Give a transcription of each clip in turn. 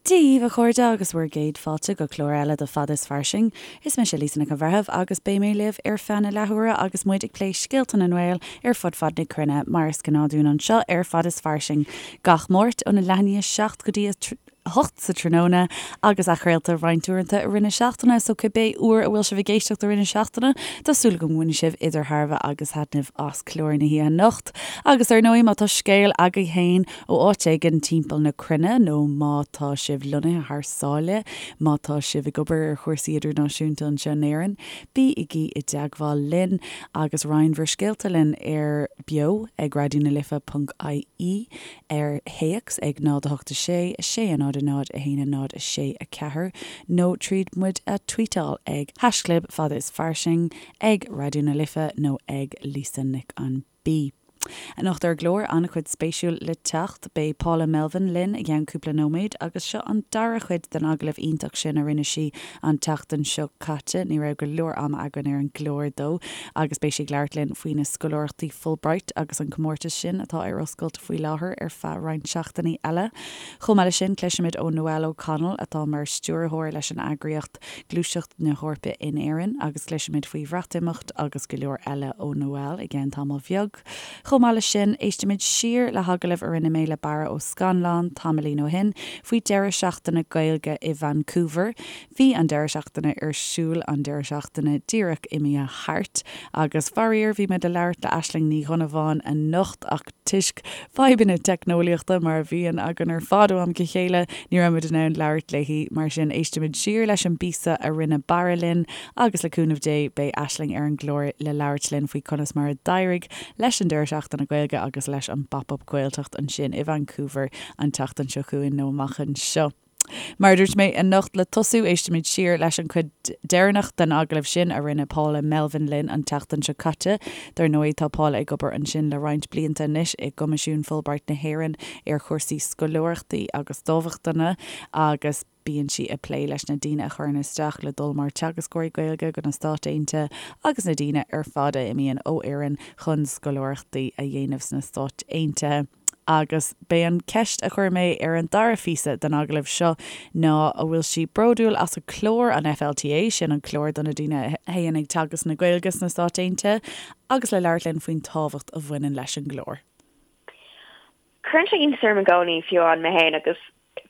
Dia dhaoibh a chairde agus bhur gcéad fáilte go clár eile de Fada is Fairsing. Is mise Lisa Nic an Bhreithimh agus beidh mé libh ar feadh na leathuaire agus muid ag plé scéalta na nGael ar fud fad na cruinne, mar is gnáth dúinn anseo ar Fada is Fairsing gach Máirt óna leath i ndiaidh 7 go dtí a 8 sa tráthnóna agus athchraolta roinnt uaireanta i rith na seachtaine, so cibé uair a bhfuil sibh ag éisteacht i rith na seachtaine, tá súil agam go mbainfidh sibh idir thairbhe agus thaitneamh as clár na hoíche anocht. Agus ar ndóigh, má tá scéal agaibh féin ó áit éigin timpeall na cruinne nó má tá sibh lonnaithe thar sáile, má tá sibh ag obair ar chúrsaí idirnáisiúnta anseo in Éirinn, bígí i dteagmháil linn agus roinn bhur scéalta linn ar beo ag raidionalife ponc ie. ar théacs ag 0 8 6 6 0 0 1 0 6 4 nó tríd muid a tweetáil ag haischlib fada is fairsing, ag Raidió na Life nó ag Lisa Nic an B. Anocht ar an gclár, an-chuid spéisiúil le teacht. Beidh Paula Melvin linn i gceann cúpla nóiméad agus seo an dara cuid den agallamh iontach sin a rinne sí an tseachtain seo caite. Ní raibh go leor ama againn ar an gclár dó agus beidh sí ag labhairt linn faoi na scoláireachtaí Fulbright agus an comórtas sin atá ar oscailt faoi láthair ar feadh roinnt seachtainí eile. Chomh maith leis sin, cloisfimid ó Noelle O'Connell atá mar stiúrthóir leis an eagraíocht Gluaiseacht na hEorpa in Éirinn agus cloisfimid faoi Bhreatimeacht agus go leor eile ó Noelle i gceann tamall bheag. Chomh maith leis sin, éistfimid siar le hagallamh a rinne mé le Barra Ó Scannláin tamaillín ó shin faoi deireadh seachtaine Gaeilge i Vancouver. Bhí an deireadh seachtaine ar siúl an deireadh seachtaine díreach imithe thart agus faraor bhí mé le labhairt le Aisling Ní Dhonnabháin anocht ach toisc fadhbanna teicneolaíochta mar a bhíonn againn ar fad ó am go chéile ní raibh muid in ann labhairt léi. Mar sin éistfimid siar leis an bpíosa a rinne Barra linn agus le cúnamh Dé beidh Aisling ar an gclár le labhairt linn faoi conas mar a d'éirigh leis an deireadh seachtaine Gaeilge agus leis an bPop-Up Gaeltacht ansin i Vancouver an tseachtain seo chugainn nó amach anseo. Mar a dúirt mé, anocht le tosú, éistfimid siar leis an chuid deireanach den agallamh sin a rinne Paula Melvin linn an tseachtain seo caite. Dar ndóigh, tá Paula ag obair ansin le roinnt blianta anois i gCoimisiún Fulbright na hÉireann ar chúrsaí scoláireachtaí agus dámhachtana agus bíonn sí ag plé leis na daoine a chuireann isteach le dul mar teagascóirí Gaeilge go na Stáit Aontaithe agus na daoine ar fad a imíonn ó Éirinn chun scoláireachtaí a dhéanamh sna Stáit Aontaithe. Agus b'é an ceist a chuir mé ar an dara phíosa den agallamh seo ná an bhfuil sí bródúil as a clár, an FLTA, sin an clár do na daoine a théann ag teagasc na Gaeilge sna Stáit Aontaithe, agus le labhairt linn faoin tábhacht a bhaineann leis an gclár. Cuireann sé iontas orm i gcónaí, fiú amháin mé féin, agus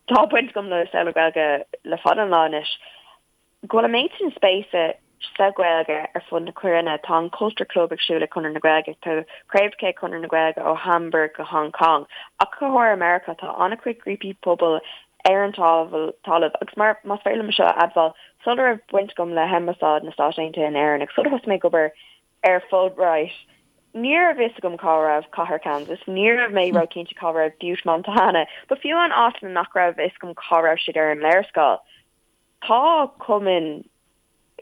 tá baint agam le saol na Gaeilge le fada an lá anois, go bhfuil an méid sin spéise sa Ghaeilge ar fud na cruinne. Tá an Culture Club ag siúl ag Conradh na Gaeilge, tá craobhacha ag Conradh na Gaeilge ó Hamburg go Hong Kong, ach go háirithe i Meiriceá tá an-chuid grúpaí pobail ar an talamh agus mar, más féidir liom seo a admháil, sula raibh baint agam le hAmbasáid na Stát Aontaithe in Éirinn agus sular thosaigh mé ag obair ar Fulbright, ní raibh fhios agam cá raibh cathair Kansas, ní raibh mé ró-chinnte cá raibh Butte, Montana, but fiú amháin áiteanna nach raibh fhios agam cá raibh siad ar an léarscáil. Tá cumainn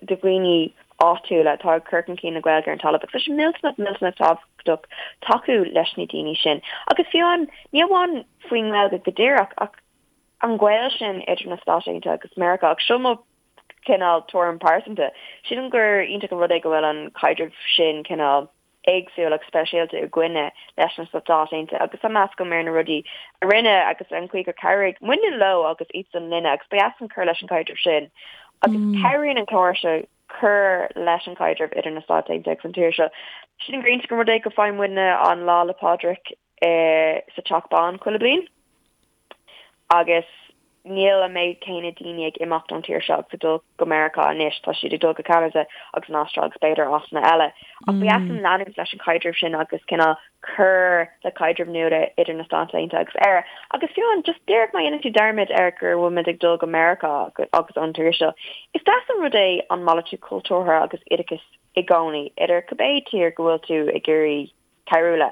de dhaoine áitiúla atá ag cur chun cinn na Gaeilge ar an talamh agus tá sé millteanach, millteanach tábhachtach tacú leis na daoine sin. Agus fiú amháin, ní amháin faoin nGaeilge go díreach ach an gaol sin idir na Stáit Aontaithe agus Meiriceá. Agus seo mo chineál tuairim pearsanta. Sílim gur iontach an rud é go bhfuil an caidreamh sin cineál éagsúil agus speisialta againne leis na Stáit Aontaithe agus tá meas agam ar na rudaí a rinne agus an chaoi gur chabhraigh muidne leo agus iadsan linne agus ba dheas linn cur leis an gcaidreamh sin agus cabhraíonn an clár seo cur leis an gcaidreamh idir na Stáit Aontaithe agus an tír seo. Sílim gur iontach an rud é go bhfaigheann muidne an Lá 'le Pádraig sa Teach Bán chuile bliain. Agus níl an méid céanna daoine ag imeacht ón tír seo agus ag dul go Meiriceá anois, tá siad ag dul go Ceanada agus an Astráil agus b'fhéidir áiteanna eile. Ach ba dheas linn leanúint leis an chaidreamh sin agus cineál cur le caidreamh nua idir na Stáit Aontaithe agus Éire. Agus fiú amháin, just díreach má dhéanann tú dearmad ar go bhfuil muid ag dul go Meiriceá agus ón tír seo, is deas an rud é an malartú cultúrtha agus oideachais i gcónaí idir cibé tír go bhfuil tú ag iarraidh cabhrú le.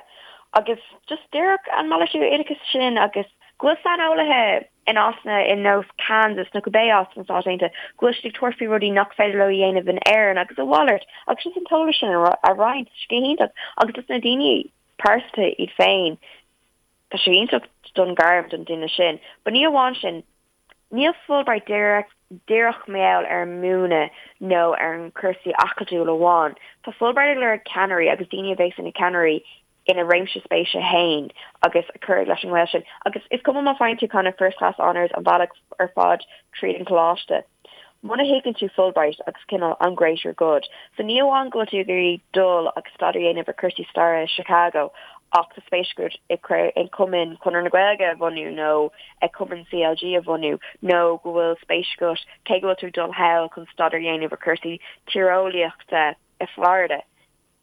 Agus just díreach an malartú oideachais sin agus go bhfuil saineolaithe in áiteanna ar nós Kansas nó cibé áit sna Stáit Aontaithe, go bhfuil siad ag tabhairt faoi rudaí nach féidir leo a dhéanamh in Éirinn agus a mhalairt agus just an t-eolas sin a roinnt, tá sé go hiontach agus dos na daoine pearsanta iad féin, tá sé iontach don ghairm don duine sin. But ní amháin sin, Níl Fulbright díreach díreach mar gheall ar an múineadh nó ar an cúrsaí acadúil amháin. Tá Fulbright ag lorg ceannairí agus daoine a bheas ina ceannairí ina réimse spéise féin agus a cur leis an ngaol sin. Agus is cuma má faigheann tú kind of first class honours an bealach ar fad tríd an choláiste, muna thuigeann tú Fulbright agus cineál an greater good, so ní amháin go bhfuil tú ag iarraidh dul agus staidéar a dhéanamh ar cúrsaí staire i Chicago ach tá spéis agat i cumann Chonradh na Gaeilge a bhunú nó i cumann CLG a bhunú nó go bhfuil spéis agat cé go bhfuil tú ag dul thall chun staidéar a dhéanamh ar cúrsaí tíreolaíochta i Florida.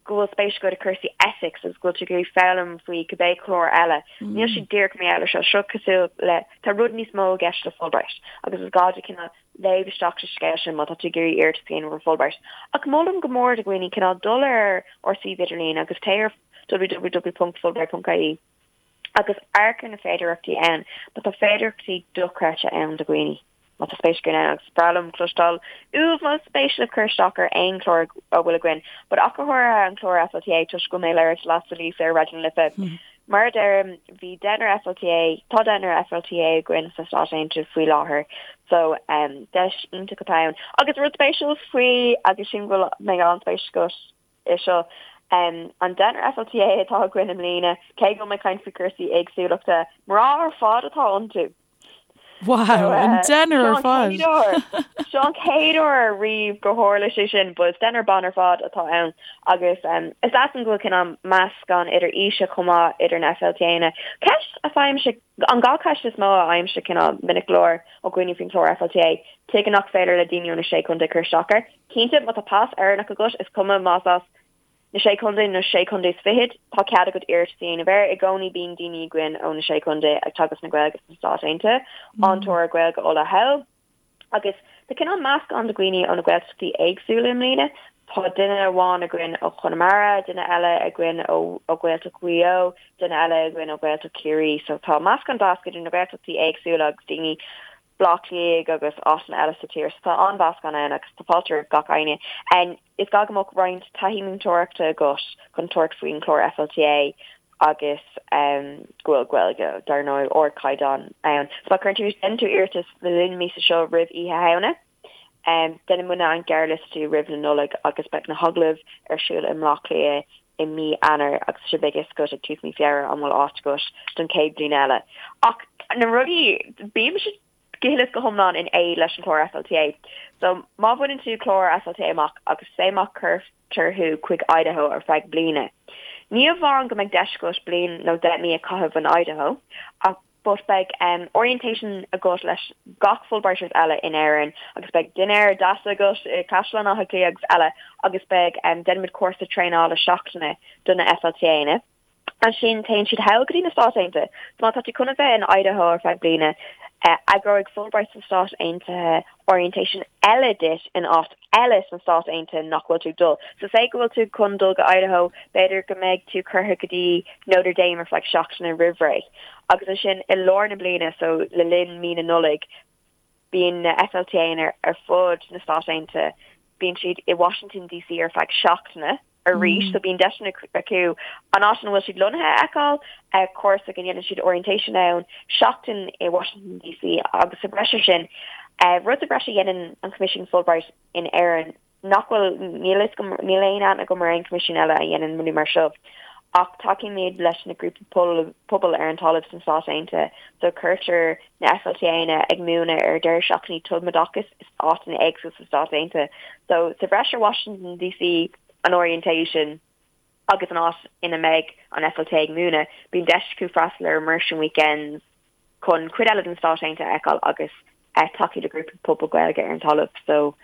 go bhfuil spéis agat i cúrsaí ethics agus go bhfuil tú ag iarraidh foghlaim faoi cibé clár eile. Níl sé díreach mar gheall air seo. Seo cosúil le, tá rud níos mó i gceist le Fulbright agus is gá duit cineál léamh isteach sa scéal sin má tá tú ag iarraidh iarratas a dhéanamh ar Fulbright. Ach molaim go mór do dhaoine cineál dul ar ár suíomh idirlín agus téigh ar www.fulbright.ie agus amharc ar na féidearthachtaí ann, mar tá féidearthachtaí dochreidte ann do dhaoine má tá spéis againn ann agus is breá liom cloisteáil uaibh más spéis libh cur isteach ar aon chlár a bhfuil againn, but ach go háirithe an clár FLTA toisc go bhfuil mé ag labhairt leatsa Lisa ar Raidió na Life. Mar a deirim, bhí deichniúr FLTA, tá deichniúr FLTA againn sna Stáit Aontaithe faoi láthair so um, deis iontach atá ann. Agus rud spéisiúil faoi agus sin go mbeidh an-spéis agat é seo. An deichniúr FLTA atá againn i mbliana, cé go bhfuil mé ag caint faoi chúrsaí éagsúlachta, mná ar fad atá iontu. Wow, an deichniúr ar fad! Seo an chéad uair riamh gur tharla sé sin, but is deichniúr ban ar fad atá ann agus is deas an go bhfuil cineál meascán idir aoise chomh maith idir na FLTAnna. Ceist a fhaighimse, an ghnáthcheist is mó a fhaighimse cineál minic go leor ó dhaoine faoin chlár FLTA, tuige nach féidir le daoine ó na Sé Chontae cur isteach air? Cinnte, má tá pas Éireannach agat, is cuma más as na Sé Chontae nó Sé Chontae is Fichead, tá cead agat iarratas a dhéanamh air. I gcónaí bíonn daoine againn ó na Sé Chontae ag teagasc na Gaeilge sna Stáit Aontaithe, an tóir Gaeilge Uladh thall. Agus tá cineál meascán de dhaoine ó na Gaeltachtaí éagsúla i mbliana. Tá duine amháin againn ó Chonamara, duine eile againn ó Ghaeltacht Mhaigh Eo, duine eile againn ó Ghaeltacht Chiarraí. So tá meascán deas idir na Gaeltachtaí éagsúla agus daoine Bleá Cliath agus áiteanna eile sa tír. So tá an-mheascán ann agus tá fáilte roimh gach éinne. Is gá go mbeadh roinnt taithí múinteoireachta agat chun tabhairt faoin chlár FLTA agus go bhfuil Gaeilge, dar ndóigh, ardchaighdeán ann. So má chuireann tú, déanann tú iarratas le linn na míosa seo roimh Oíche Shamhna, déanfaidh muidne an gearrliostú roimh na Nollag agus beidh na hagallaimh ar siúl i mBleá Cliath i mí Eanáir agus so beidh a fhios agat ag tús mí Feabhra an bhfuil áit agat don chéad bhliain eile. Ach na rudaí, bímse go huile is go hiomlán in éad leis an chlár FLTA. So má bhaineann tú clár FLTA amach agus say má chuirtear thú chuig Idaho ar feadh bliana, ní amháin go mbeidh deis agat bliain nó 10 mí a chaitheamh in Idaho ach but beidh orientation agat leis gach Fulbrighters eile in Éirinn agus beidh dinnéar deas agat i Caisleán Átha Cliath agus eile agus beidh déanaimid cúrsa traenála seachtaine do na FLTAnna. Ansin téann siad thall go dtí na Stáit Aontaithe. So má tá tú chun a bheith in Idaho ar feadh bliana, eagróidh Fulbright sna Stáit Aontaithe orientation eile duit in áit eile sna Stáit Aontaithe nach bhfuil tú ag dul. So say go bhfuil tú chun dul go Idaho, b'fhéidir go mbeidh tú curtha go dtí Notre Dame ar feadh seachtaine roimh ré. Agus ansin i lár na bliana, so le linn mí na Nollag, bíonn na FLTAnna ar fud na Stát Aontaithe, bíonn siad i Washington DC ar feadh seachtaine. arís, so bíonn deiseanna acu an áit ina bhfuil siad lonnaithe a fheiceáil, cúrsa go ndéanann siad orientation ann, seachtain i Washington DC agus sa bhreis ar sin, rud sa bhreis a dhéanann an Coimisiún Fulbright in Éirinn nach bhfuil, níl fhios agam, níl aon aithne agam ar aon choimisiún eile a dhéanann rudaí mar seo, ach tacaímid leis na grúpaí pobail ar an talamh sna Stáit Aontaithe, so cuirtear na FLTAnna ag múineadh ar deireadh seachtainí tumoideachais is áiteanna éagsúla sna Stáit Aontaithe. So sa bhreis ar Washington DC, an orientation agus an áit ina mbeidh an FLTA ag múineadh, bíonn deis acu freastal ar immersion weekends chun cuid eile den Stáit Aontaithe a fheiceáil agus tacú le grúpaí pobail Gaeilge ar an talamh. So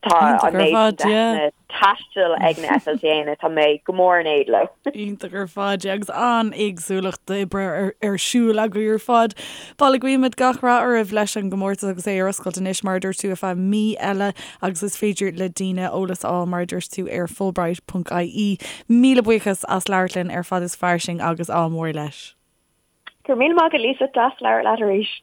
Tá an méid sin deiseanna taistil ag na FLTAnna, tá mé go mór in éad leo. Iontach ar fad, yeah, agus an-éagsúlacht d'oibre ar siúl agaibh ar fad. Bhuel, guímid gach rath oraibh leis an gcomórtas agus é ar oscailt anois, mar a dúirt tú, ar feadh mí eile agus is féidir le daoine eolas a fháil, mar a dúirt tú, ar fulbright.ie. Míle buíochas as labhairt linn ar Fad is Fairsing agus ádh mór leis. Go raibh míle maith agat Lisa, deas labhairt leat arís.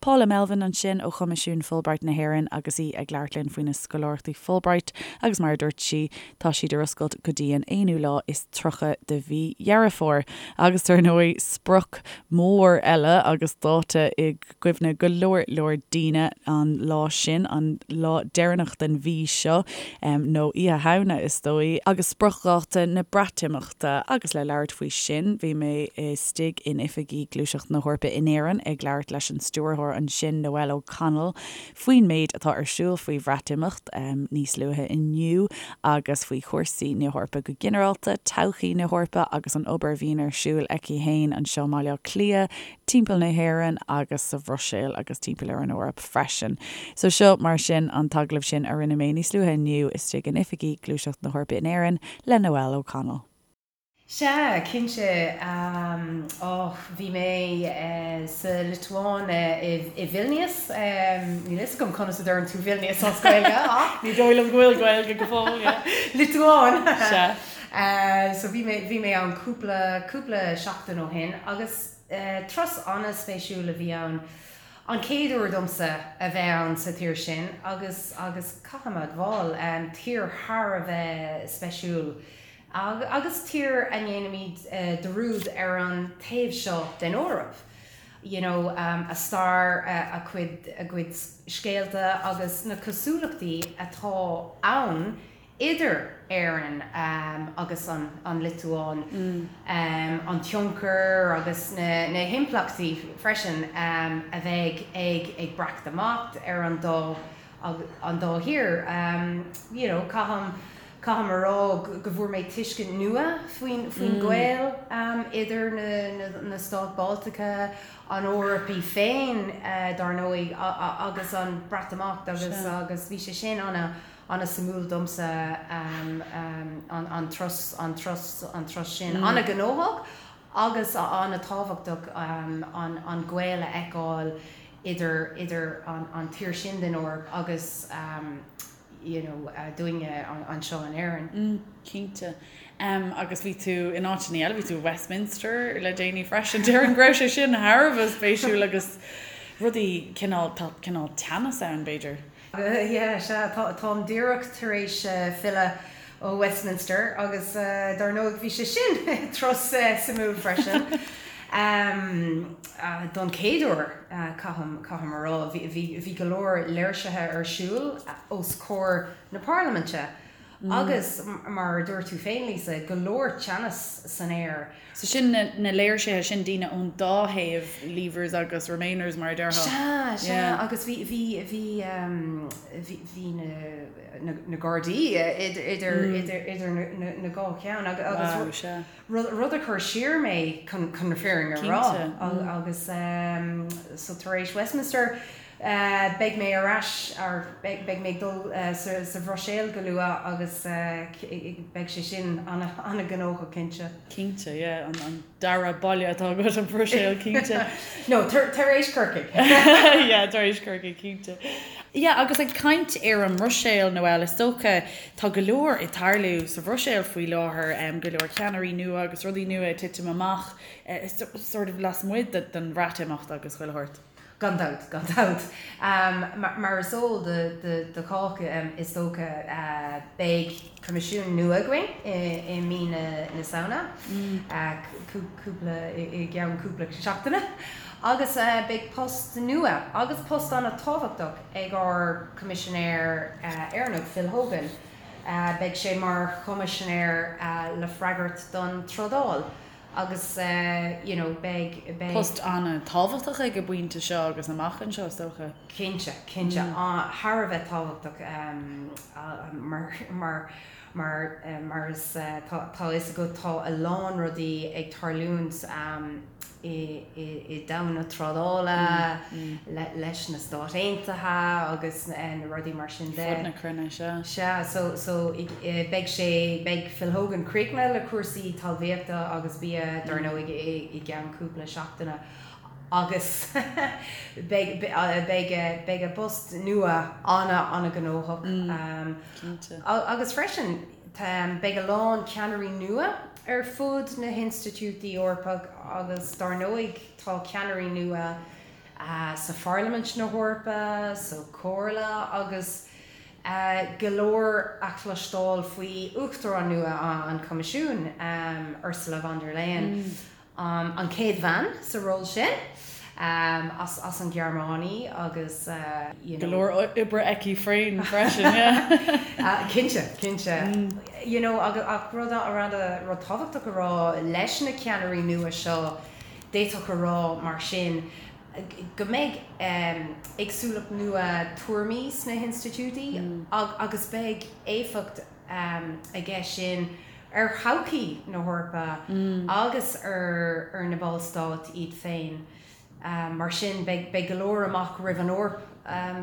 Paula Melvin ansin ó Choimisiún Fulbright na hÉireann agus í ag labhairt linn faoi na scoláireachtaí Fulbright agus mar a dúirt sí, tá siad ar oscailt go dtí an aonú lá is 30 de mhí Dheireadh Fómhair. Agus dar ndóigh, sprioc mhór eile agus dáta i gcuimhne go leor leor daoine an lá sin, an lá deireanach den mhí seo, nó Oíche Shamhna is dóigh, agus spriocdháta na Breatimeachta. Agus le labhairt faoi sin, bhí mé istigh in oifigí Gluaiseacht na hEorpa in Éirinn ag labhairt leis an stiúrthóir ansin, Noelle O'Connell, faoin méid atá ar siúl faoi Bhreatimeacht níos luaithe inniu agus faoi chúrsaí na hEorpa go ginearálta, todhchaí na hEorpa agus an obair a bhíonn ar siúl aici féin anseo i mBaile Átha Cliath, timpeall na hÉireann agus sa Bhruiséil agus timpeall ar an Eoraip freisin. So seo mar sin an t-agallamh sin a rinne mé níos luaithe inniu istigh in oifigí Gluaiseacht na hEorpa in Éirinn le Noelle O'Connell. Sea, cinnte. Och, bhí mé sa Liotuáin i Vilnius. Níl a fhios agam conas a deireann tú Vilnius as Gaeilge ach. Ní dóigh liom go bhfuil Gaeilge go fóill, yeah. Liotuáin! Sea. So bhí mé, bhí mé ann cúpla, cúpla seachtain ó shin agus turas an-spéisiúil a bhí ann. An chéad uair domsa a bheith ann sa tír sin agus, agus caithfidh mé a admháil, tír thar a bheith speisiúil agus tír a ndéanaimid dearúd ar an taobh seo den Eoraip. You know, a stair, a cuid, a gcuid scéalta agus na cosúlachtaí atá ann idir Éirinn agus an Liotuáin, an tionchar agus na himpleachtaí freisin a bheidh ag Breatimeacht ar an dá an dá thír. You know, caithim caithim a rá go bhfuair mé tuiscint nua faoin faoin ghaol idir na na Stáit Bhaltacha, an Eoraip í féin dar ndóigh agus an Breatimeacht agus agus bhí sé sin ana An-suimiúil domsa an turas, an turas, an turas sin. An-ghnóthach agus an-tábhachtach an gaol a fheiceáil idir, idir an tír sin den Eoraip agus you know dúinne anseo in Éirinn. Mm, cinnte. Agus bhí tú in áiteanna eile, bhí tú i Westminster le déanaí freisin. Déarfainn go raibh sé sin thar a bheith spéisiúil agus rudaí cineál, tá cineál teannas ann b'fhéidir. Yeah, sea, táim díreach tar éis filleadh ó Westminster agus dar ndóigh bhí sé sin turas suimiúil freisin. Don chéad uair, caithim, caithim a rá, bhí go leor léirsithe ar siúl os comhair na parlaiminte agus mar a dúirt tú féin, Lisa, go leor teannas san aer. So sin na léirsithe sin daoine ón dá thaobh, Leavers agus Remainers mar a déarfá. Sea, sea, agus bhí, bhí, bhí, bhí, bhí na, na Gardaí idir, idir, idir na, na dhá cheann agus Wow, sea. rud, rud a chuir siar mé chun, chun na fírinne a rá. Cinnte. Agus so tar éis Westminster, Beidh mé ar ais, or beidh mé ag dul sa Bhruiséil go luath agus beidh sé sin an-ghnóthach cinnte. Cinnte, yeah, an dara baile atá agat, an Bhruiséil, cinnte. No, tar éis Corcaigh. Yeah, tar éis Corcaigh, cinnte. Yeah, agus ag caint ar an mBruiséil, Noelle, is dócha, tá go leor ag tarlú sa Bhruiséil faoi láthair, go leor ceannairí nua agus rudaí nua ag titim amach, sort of lasmuigh den Bhreatimeacht agus chuile shórt. Gan dabht, gan dabht. Mar is eol do chách, is dócha, beidh Coimisiún nua againn i mí na Samhna, cúpla, i gceann cúpla seachtaine, agus beidh post nua, agus post an-tábhachtach, ag ár Coimisinéir Éireannach, Phil Hogan. Beidh sé mar Choimisinéir le freagairt don trádáil. Agus you know beidh, beidh. Post an-tábhachtach ag an bpointe seo agus amach anseo is dócha. Cinnte, cinnte. Thar a bheith tábhachtach mar, mar, mar, mar is tá, tá a fhios agat tá a lán rudaí ag tarlúint i, i, i domhan na trádála leis na Stáit Aontaithe agus na rudaí mar sin de. Fud na cruinne, sea. Sea, so, so beidh sé, beidh Phil Hogan críochnaithe le cúrsaí talmhaíochta agus bia, dar ndóigh, i gceann cúpla seachtaine agus beidh, beidh, beidh a bpost nua ana, ana-ghnóthach. Cinnte. Agus freisin, beidh a lán ceannairí nua ar fud na hinstitiúidí Eorpach agus dar ndóigh tá ceannairí nua. sa Pharlaimint na hEorpa, sa Chomhairle agus go leor a chloisteáil faoi Uachtarán nua an Choimisiúin, Ursula von der Leyen. An chéad bhean sa ról sin, as an Ghearmáin agus you know. Go leor oibre aici féin freisin, yeah. Cinnte, cinnte. You know ach rud, rud tábhachtach a rá leis na ceannairí nua seo, d'fhéadfadh a rá mar sin go mbeidh éagsúlacht nua tuairmí sna hinstitiúidí agus beidh éifeacht aige sin ar thodhchaí na hEorpa agus ar na ballstáit iad féin. Mar sin, beidh go leor amach roimh an Eoraip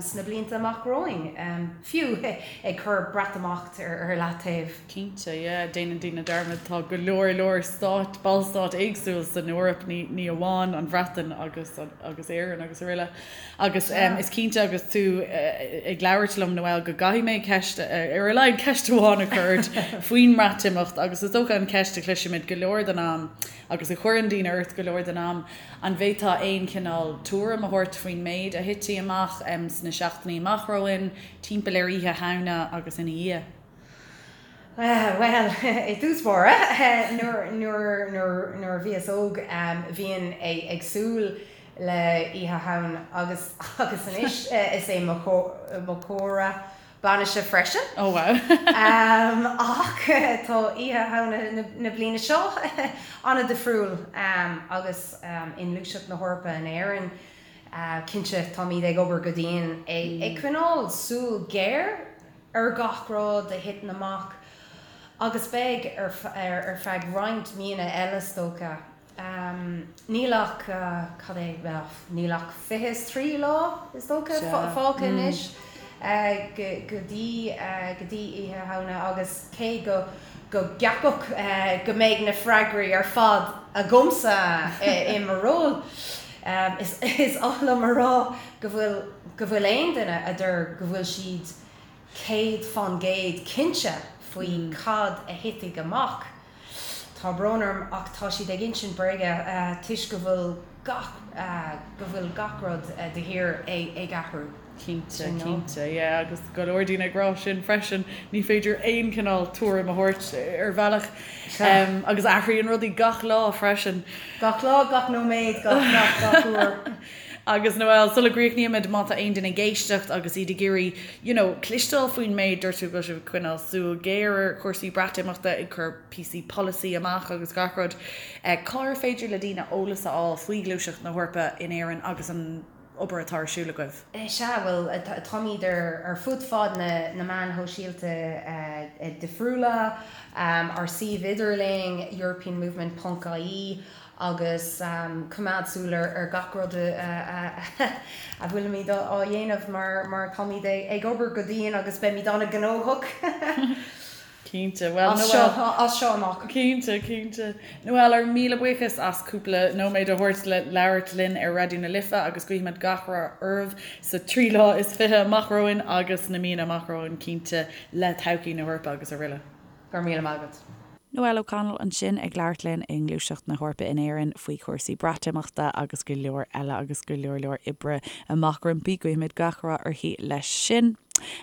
sna blianta amach romhainn, fiú ag cur Breatimeacht ar leataobh. Cinnte, yeah. Déanann daoine dearmad, tá go leor leor stáit, ballstáit éagsúil san Eoraip, ní amháin an Bhreatain agus agus Éirinn agus araile. Agus is cinnte agus tú ag labhairt liom, Noelle, go gcaithfidh mé ceist, ar a laghad ceist amháin a chur ort faoin mBreatimeacht agus is dócha an cheist a chloisimid go leor den am agus a chuireann daoine ort go leor den am, an bhféadfá aon chineál tuairim a thabhairt faoin méid a thitfidh amach sna seachtainí amach romhainn, timpeall ar Oíche Shamhna agus ina dhiaidh? Bhuel, i dtús báire, nuair a bhíos óg, bhínn ag súil le Oíche Shamhna agus agus anois is é mo chomhartha bainise freisin. Oh wow. Ach tá Oíche Shamhna na bliana seo an-difriúil agus i nGluaiseacht na hEorpa in Éirinn, cinnte táimid ag obair go dian ag coinneáil súil ghéar ar gach rud a thiteann amach agus beidh ar feadh roinnt míonna eile is dócha. Níl ach, cad é, bhuel, níl ach 23 lá, is dócha, fágtha anois go dtí, go dtí Oíche Shamhna agus cé go, go gceapfadh go mbeidh na freagraí ar fad agamsa i mo ról, is, is oth liom a rá go bhfuil, go bhfuil aon duine a deir go bhfuil siad 100% cinnte faoi cad a thitfidh amach. Tá brón orm ach tá siad ag insint bréige toisc go bhfuil gach, go bhfuil gach rud de shíor ag athrú. Cinnte, cinnte, yeah agus go leor daoine ag rá sin freisin, ní féidir aon chineál tuairim a thabhairt ar bhealach agus athraíonn rudaí gach lá freisin. Gach lá, gach nóiméad, gach, gach, gach uair. Agus Noelle, sula gcríochnaímid, má tá aon duine ag éisteacht agus iad ag iarraidh, you know, cloisteáil faoin méid, dúirt tú go bhfuil sibh ag coinneáil súil ghéar ar chúrsaí Breatimeachta, ag cur píosaí polasaí amach agus gach rud, cár féidir le daoine eolas a fháil faoi Ghluaiseacht na hEorpa in Éirinn agus an obair atá ar siúl agaibh? Sea, bhuel, táimid ar fud fad na meáin shóisialta difriúla, ár suíomh idirlín, europeanmovement ponc ie, agus coimeád súil ar gach rud a bhfuilimid á dhéanamh mar táimid ag obair go dian agus beimid an-ghnóthach Cinnte, bhuel, as seo, as seo amach. Cinnte, cinnte. Noelle, ár míle buíochas as cúpla nóiméad a thabhairt le labhairt linn ar Raidió na Life agus guímid gach rath oraibh sa 23 lá amach romhainn agus sna míonna amach romhainn cinnte le todhchaí na hEorpa agus araile. Go raibh míle maith agat. Noelle O'Connell ansin ag labhairt linn i nGluaiseacht na hEorpa in Éirinn faoi chúrsaí Breatimeachta agus go leor eile agus go leor leor oibre amach roimpi. Guímid gach rath uirthi leis sin.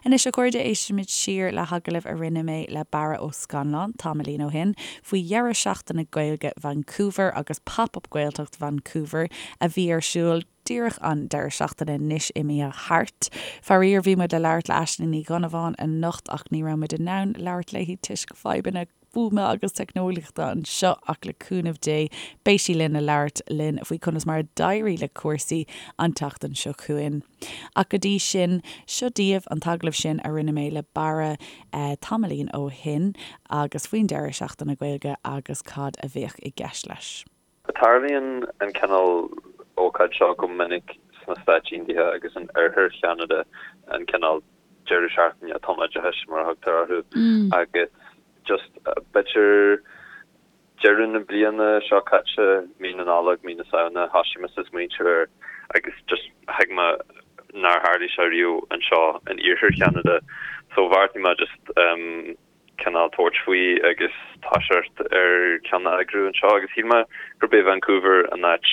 Anois a chairde, éistfimid siar le hagallamh a rinne mé le Barra Ó Scannláin tamaillín ó shin faoi dheireadh seachtaine Gaeilge Vancouver agus Pop Up Gaeltacht Vancouver a bhí ar siúl díreach an deireadh seachtaine anois imithe thart. Faraor, bhí muid le labhairt le Aisling Ní Dhonnabháin anocht ach ní raibh muid in ann labhairt léi toisc fadhbanna fuaime agus teicneolaíochta anseo ach le cúnamh Dé beidh sí linn le labhairt linn faoi conas mar a d'éirigh le cúrsaí an tseachtain seo chugainn. Ach go dtí sin, seo daoibh an t-agallamh sin a rinne mé le Barra tamaillín ó shin agus faoin deireadh seachtaine Gaeilge agus cad a bheadh i gceist leis. Tarlaíonn an cineál ócáid seo go minic sna Stáit Aontaithe agus in oirthear Cheanada, an cineál deireadh seachtaine tumoideachais mar a thugtar orthu, agus just b'fhéidir deireadh na bliana seo caite, mí na Nollag, mí na Samhna, thosaigh mise ag smaointiú air agus just thuig mé nár tharlaigh sé riamh anseo in iarthar Cheanada so bheartaigh mé just cineál tabhairt faoi agus toiseacht ar ceann a eagrú anseo agus shíl mé gurb é Vancouver an áit.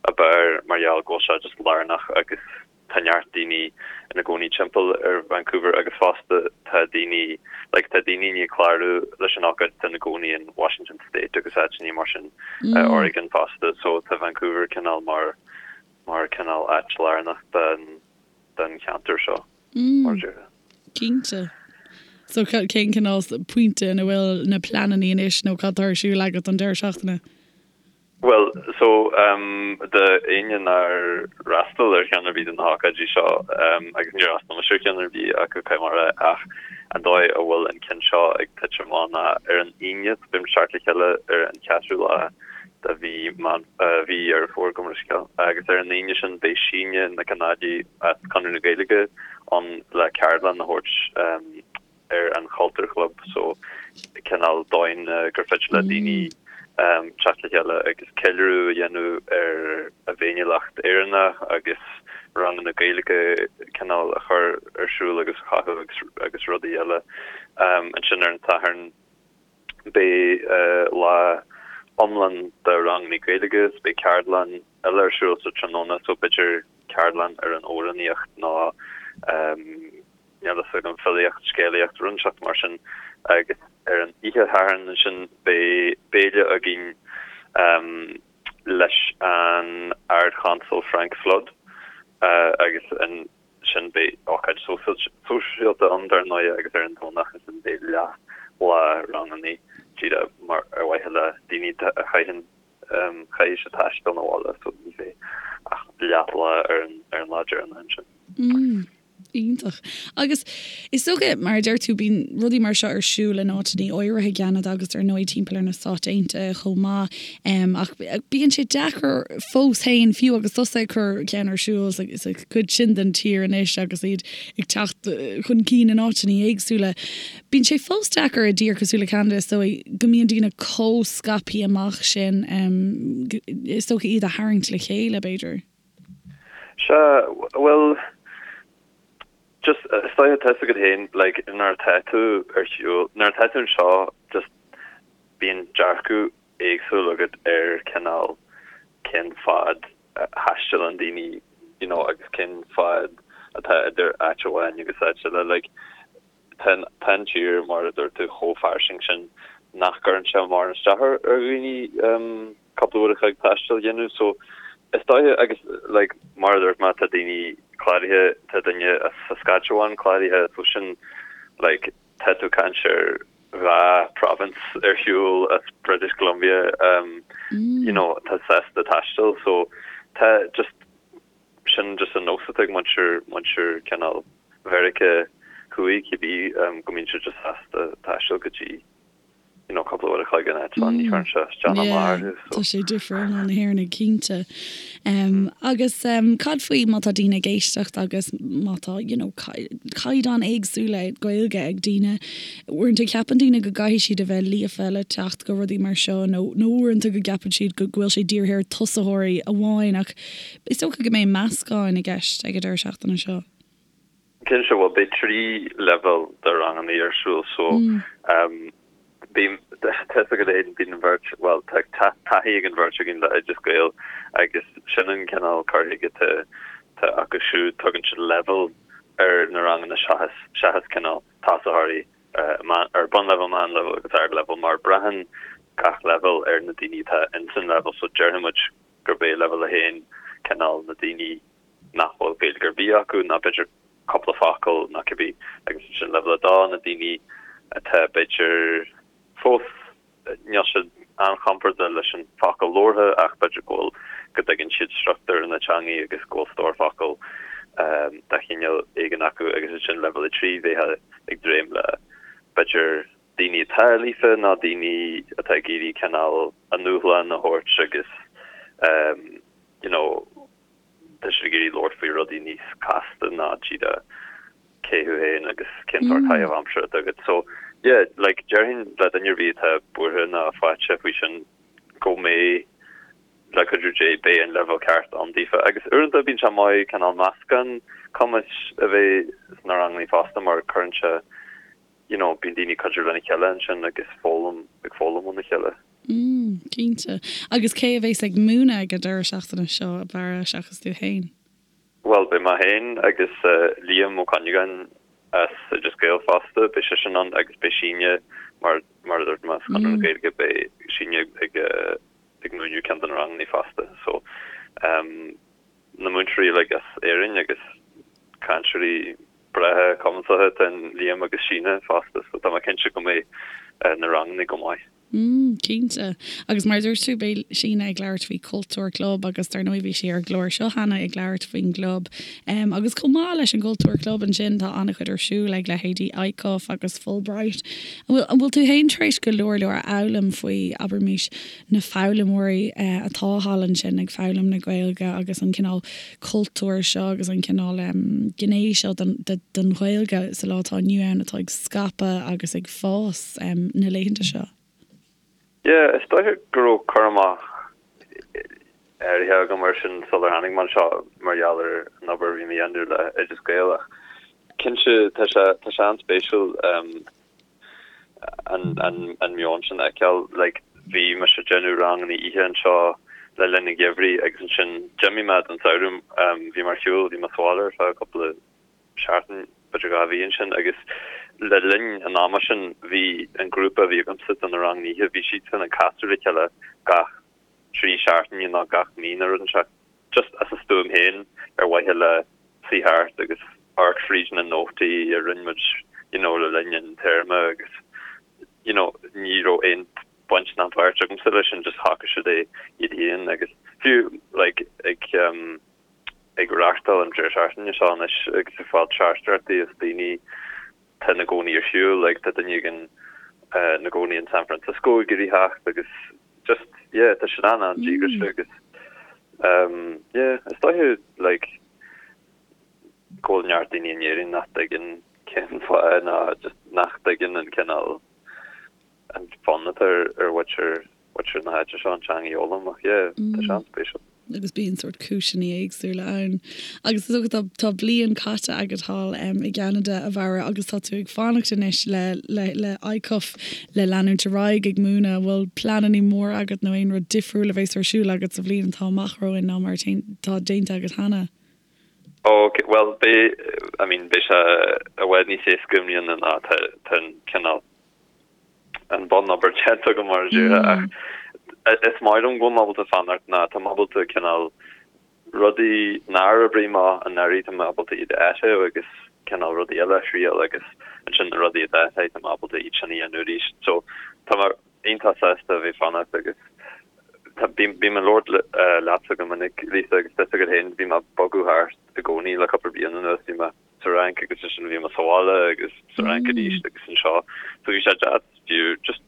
ab fhearr mar gheall go bhfuil sé just lárnach agus tá neart daoine ina gcónaí timpeall ar Vancouver agus fosta tá daoine like tá daoine i ndiaidh clárú leis an ócáid atá ina gcónaí in Washington State agus áiteanna mar sin Oregon fosta so tá Vancouver cineál mar mar cineál áit lárnach den den cheantar seo mar a déarfá. Cinnte. So cén cineál pointe ina bhfuil na pleananna anois nó cad tá ar siúl agat don deireadh seachtaine? Bhuel, so, do éinne nár fhreastail ar cheann ar bith de na hócáidí seo, agus níor fhreastail mise ar cheann ar bith acu, caithfidh mé a rá, ach an dóigh a bhfuil an ceann seo ag titim amach ná ar an Aoine, so beidh muid ag teacht le chéile ar an cheathrú lá de mhí Meán, mhí Dheireadh Fómhair, gabh mo leithscéal, agus ar an Aoine sin beidh Síne Nic an Ailí as Conradh na Gaeilge ann le ceardlann a thabhairt ar an Chultúr Chlub so cineál dóigh gur féidir le daoine teacht le chéile agus ceiliúradh a dhéanamh ar a bhféiniúlacht Éireannach agus ranganna Gaeilge cineál a chur ar siúl agus a chothú agus agus rudaí eile. Ansin ar an Satharn beidh lá iomlán de ranganna Gaeilge is beidh ceardlann eile ar siúl sa tráthnóna so b'fhéidir ceardlann ar an amhránaíocht nó níl a fhios agam, filíocht, scéalaíocht, rud inteacht mar sin agus ar an oíche Shathairn ansin beidh béile againn leis an Ard-Chonsal Frank Flood agus ansin beidh ócáid sóisialta ann dar ndóigh agus ar an Domhnach ansin beidh leath lá ranganna díreach mar ar mhaithe le daoine a chaitheann chaithfidh siad taisteal 'na bhaile so ní bheidh ach leath lá ar an lá deireanach ansin. Iontach. Agus is dócha, mar a deir tú, bíonn rudaí mar seo ar siúl in áiteanna áirithe i gCeanada agus ar ndóigh timpeall ar na Stáit Aontaithe chomh maith. Ach bíonn sé deacair fós féin, fiú agus tusa ag cur ceann ar siúl sa chuid sin den tír anois agus iad ag teacht chun cinn in áiteanna éagsúla, bíonn sé fós deacair i dtír cosúil le Ceanada, is dóigh, go mbíonn daoine chomh scaipthe amach sin, is dócha iad a tharraingt le chéile, b'fhéidir. Sea, bhuel, just, is dóiche, tá a fhios agat féin, like, nuair atá tú ar shiúl, nuair atá tú anseo, just, bíonn dearcadh éagsúil agat ar cineál cén fad a thaistealann daoine, you know, agus cén fad atá idir áit amháin agus áit eile, like, tá an tír, mar a dúirt tú, chomh fairsing sin nach gcuireann sé mórán isteach ar dhaoine cúpla uair a chloig taistil a dhéanamh. So, is dóiche, agus like, mar a dúirt mé, tá daoine cláraithe, tá duine as Saskatchewan cláraithe, so sin, like, tá tú ag caint ar dhá province ar shiúl as British Columbia, um, you know, tá sásta taisteal, so tá just, Sin just an nós atá ag muintir, muintir cineál Mheiriceá Thuaidh, cibé, go mbíonn siad just sásta taisteal go dtí, you know, cúpla uair a chloig in eitleán, ní chuireann sé isteach ná amach orthu, so. Tá sé difriúil ná na hÉireannaigh, cinnte. Agus cad faoi má tá daoine ag éisteacht agus má tá, you know, caighdeán éagsúla Gaeilge ag daoine, uaireanta ceapann daoine go gcaithfidh siad a bheith líofa le teacht go rudaí mar seo nó, nó uaireanta go gceapann siad go bhfuil sé dírithe ar tosaitheoirí amháin ach Is dócha go mbeidh meascán i gceist ag an deireadh seachtaine seo. Cinnte, bhuel beidh 3 leibhéal de ranganna ar siúl so bím, tá fhios agat féin, bíonn an bheirt, bhuel tá taithí ag an bheirt againn le Oideas Gael agus sin an cineál cur chuige atá acu siúd, tugann siad leibhéal ar na ranganna seachas, seachas cineál tosaitheoirí ar bunleibhéal, meánleibhéal agus ardleibhéal mar braitheann gach leibhéal ar na daoine atá ins an leibhéal so déarfaidh muid gurb é leibhéal 1 cineál na daoine nach bhfuil Gaeilge ar bith acu ná b'fhéidir cúpla focal nó cibé agus ansin leibhéal 2 na daoine atá b'fhéidir fós níl siad an-chompordach leis an focal labhartha ach b'fhéidir go bhfuil go dtuigeann siad struchtúr na teangaí agus go bhfuil stór focal de chineál éigin acu agus ansin leibhéal 3 bheifeá ag dréim le b'fhéidir daoine atá líofa nó daoine atá ag iarraidh cineál a ndúshlán a thabhairt agus you know tá siad ag iarraidh labhairt faoi rudaí níos casta ná díreach cé thú féin agus cén sórt caitheamh aimsire atá agat. So yeah, like déarfainn le duine ar bith atá buartha ná faiteach faoi sin go mbeidh le cuidiú Dé beidh an leibhéal ceart ann daofa. Agus uaireanta bíonn sé maith cineál meascán cumais a bheith sna ranganna fosta mar cuireann sé you know, bíonn daoine ag cuidiú lena chéile ansin agus foghlaim, ag foghlaim óna chéile. Mm, cinnte. Agus cé a bhéas ag múineadh ag an deireadh seachtaine seo, a Bharra, seachas tú féin? Bhuel, beidh mé féin agus Liam Ó Cuinneagáin as Oideas Gael fosta, beidh seisean ann agus beidh Síne, mar mar a dúirt mé, as Conradh na Gaeilge, beidh Síne ag ag múineadh ceann de na ranganna fosta. So, na múinteoirí uilig as Éirinn agus cainteoirí breátha cumasacha atá in Liam agus Síne fosta, so tá mé cinnte go mbeidh na ranganna go maith. Mm, cinnte. Agus mar a dúirt tú, beidh Síne ag labhairt faoi Cultúr Club agus dar ndóigh bhí sí ar an gclár seo cheana ag labhairt faoin gclub. Em, agus chomh maith leis an gCultúr Club ansin tá an-chuid ar siúl ag leithéidí ICUF agus Fulbright. An bhfuil, an bhfuil tú fhéin tar éis go leor leor a fhoghlaim faoi, abraimis, na foghlaimeoirí eh, atá thall ansin ag foghlaim na Gaeilge agus an cineál cultúr seo agus an cineál em, gné seo den, de, den Ghaeilge sa lá atá inniu ann atá ag scaipeadh agus ag fás? na laethanta seo? Yeah, is dóiche go raibh cur amach áirithe agam air sin sular tháinig mé anseo mar gheall ar an obair a bhí mé a dhéanamh le Oideas Gael ach cinnte tá sé tá sé an-spéisiúil an an an meon sin a fheiceáil. Like bhí mise ag déanamh ranganna oíche anseo le linn an gheimhridh agus ansin d'imigh mé don samhradh, bhí mé ar shiúl, bhí mé sa bhaile ar feadh cúpla seachtain, b'fhéidir 2 mhí ansin agus le linn an ama sin bhí an grúpa a bhí agamsa do na ranganna oíche, bhí siadsan ag casadh le chéile gach 3 seachtaine nó gach mí nó rud inteacht, just as a stuaim féin ar mhaithe le suí thart agus amharc fríd na nótaí a rinne muid you know le linn an téarma agus you know ní raibh aon baint ná páirt agamsa leis sin, just shocraigh siad é iad féin agus fiú like ag um, ag reáchtáil an deireadh seachtaine seo anois agus ag fáil teachtaireachtaí as daoine atá ina gcónaí ar shiúl, like tá duine éigin ina gcónaí in San Francisco ag iarraidh theacht agus just yeah tá siad an-an-díograiseach agus um yeah is dóiche like go bhfuil neart daoine in Éirinn nach dtuigeann cén fáth ná just nach dtuigeann an cineál an fonn atá ar ar mhuintir mhuintir na háite seo an teanga a fhoghlaim ach yeah tá sé an-spéisiúil. Agus bíonn sórt cúiseanna éagsúla ann. Agus is dócha tá tá bliain caite agat thall i gCeanada, a Bharra, agus tá tú ag fanacht anois le le le ICUF le leanúint ar aghaidh ag múineadh. An bhfuil pleananna móra agat nó aon rud difriúil a bheas ar siúl agat sa bhliain atá amach romhainn ná mar atá déanta agat cheana? Ok, bhuel beidh, I mean beidh sé i bhfad níos éasca i mbliana ná tá tá an cineál an bunobair déanta agam mar a déarfá ach is maith liom go bhfuil mé ábalta fanacht ná tá mé ábalta cineál rudaí nár oibrigh amach anuraidh tá mé ábalta iad a áiteamh agus cineál rudaí eile a thriail agus ansin na rudaí a d'áitigh tá mé ábalta iad sin a dhéanamh arís. So tá mé iontach sásta a bheith fanacht agus tá bím bím ag labhairt leatsa go minic Lisa agus tá a fhios agat féin bhí mé ag bogadh thart i gcónaí le cúpla bliain anuas bhí mé sa Fhrainc agus ansin bhí mé sa bhaile agus sa Fhrainc arís agus anseo. So bhí sé deas fiú just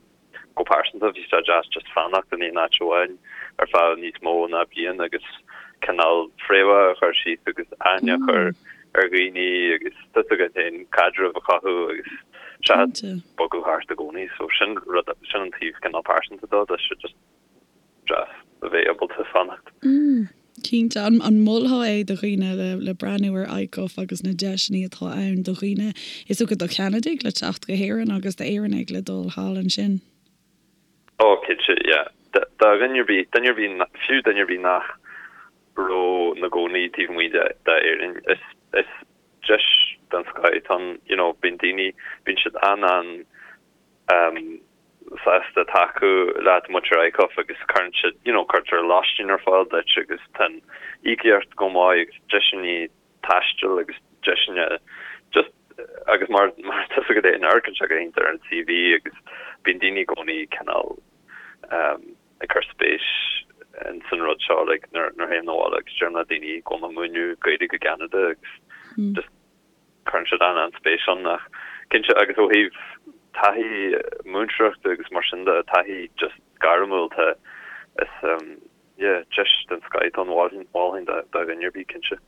go pearsanta bhí sé deas just fanacht in aon áit amháin ar feadh níos mó ná bliain agus cineál fréamhacha a chur síos agus aithne a chur ar dhaoine agus tá a fhios agat féin caidreamh a chothú agus seachas bogadh thart i gcónaí. So sin rud sin an taobh cineál pearsanta dó, tá sé just deas a bheith ábalta fanacht. Mm, cinnte. An an molfá é do dhaoine le le breathnú ar ICUF agus na deiseanna atá ann do dhaoine, is dócha do Cheanadaigh le teacht go hÉirinn agus d'Éireannaigh le dul thall ansin? Oh, cinnte, yeah. Do dhuine ar bith, duine ar bith, fiú duine ar bith nach raibh ina gcónaí taobh amuigh de d'Éirinn, is is deis den scoth atá ann, you know, bíonn daoine, bíonn siad an-an um, sásta tacú leat muintir ICUF agus cuireann siad, you know, cuirtear lóistín ar fáil duit agus tá an íocaíocht go maith agus deiseanna taistil agus deiseanna just agus mar mar tá a fhios agat féin amharcann sé go hiontach ar an CV agus bíonn daoine i gcónaí cineál um, ag cur spéis in san rud seo like nuair nuair théim abhaile agus deirim le daoine go bhfuil mé ag múineadh Gaeilge i gCeanada agus just Cuireann siad an-an-spéis ann ach cinnte agus ó thaobh taithí múinteoireachta agus mar sin de, taithí just gairmiúil tá is yeah deis den scoth atá ann mholfainn do dhuine ar bith cinnte.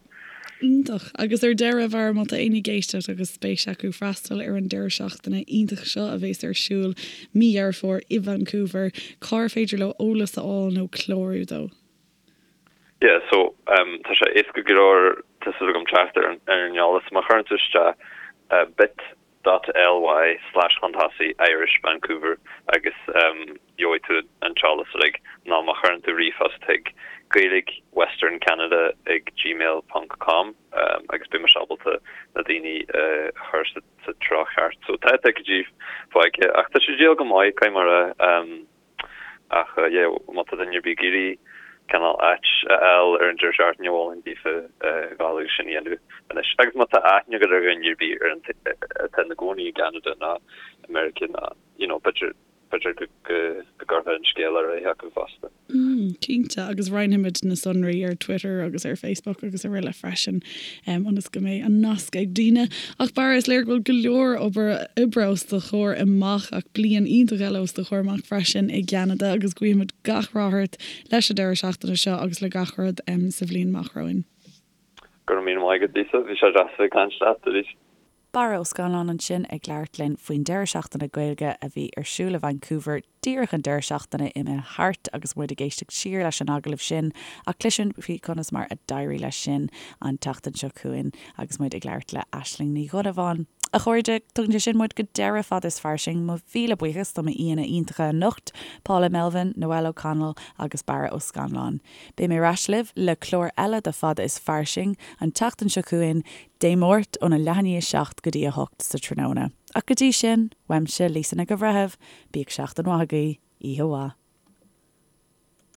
Iontach. Agus ar deireadh, a Bharra, má tá éinne ag éisteacht agus spéis acu freastal ar an deireadh seachtaine iontach seo a bheas ar siúl mí Dheireadh Fómhair i Vancouver, cár féidir leo eolas a fháil nó clárú dó? Yeah, so um tá sé éasca go leor tá súil agam teacht ar an ar an eolas. Má chuireann tú isteach bit. dot ly slash chun tosaigh Irish Vancouver agus gheobhaidh tú an t-eolas uilig nó má chuireann tú ríomhphost chuig Gaeilge Western Canada ag gmail ponc com agus beidh mise ábalta na daoine a chur sa treo cheart. So tá ticéidí fágtha ach tá sé ag díol go maith, caithfidh mé a rá. Ach yeah, má tá duine ar bith ag iarraidh cineál áit a fháil ar an deireadh seachtaine, mholfainn daofa dhul agus sin a dhéanamh anois. Agus má tá aithne agat ar dhuine ar bith ar an atá ina gcónaí i gCeanada nó i Meiriceá nó you know b'fhéidir b'fhéidir go go go gcuirfeá an scéal ar aghaidh acu fosta. Mm, cinnte, agus roinnfimid na sonraí ar Twitter agus ar Facebook agus araile freisin, ionas go mbeidh an nasc ag daoine. Ach Barra, is léir go bhfuil go leor obair oibre os do chomhair amach ach bliain iontach eile os do chomhair amach freisin i gCeanada agus guímid gach rath ort leis an deireadh seachtaine seo agus le gach rud sa bhliain amach romhainn. Go raibh míle maith agat, Lisa. Bhí sé deas a bheith ag caint leat arís. Barra Ó Scanláin ansin ag labhairt linn faoin deireadh seachtaine Gaeilge a bhí ar siúl i Vancouver díreach an deireadh seachtaine imithe thart agus muid ag éisteacht siar leis an agallamh sin ach cloisfimid faoi conas mar a d'éirigh leis sin an tseachtain seo chugainn agus muid ag labhairt le Aisling Ní Dhonnabháin. A chairde, tugann sé sin muid go deireadh Fada is Fairsing. Mo mhíle buíochas do m'aíonna iontacha anocht, Paula Melvin, Noelle O'Connell agus Barra Ó Scanláin. Beidh mé ar ais libh le clár eile de Fada is Fairsing an tseachtain seo chugainn, Dé Máirt óna leath i ndiaidh 7 go dtí 8 sa tráthnóna. Ach go dtí sin, uaimse, Lisa Nic an Bhreithimh, bíodh seachtain mhaith agaibh, oíche mhaith.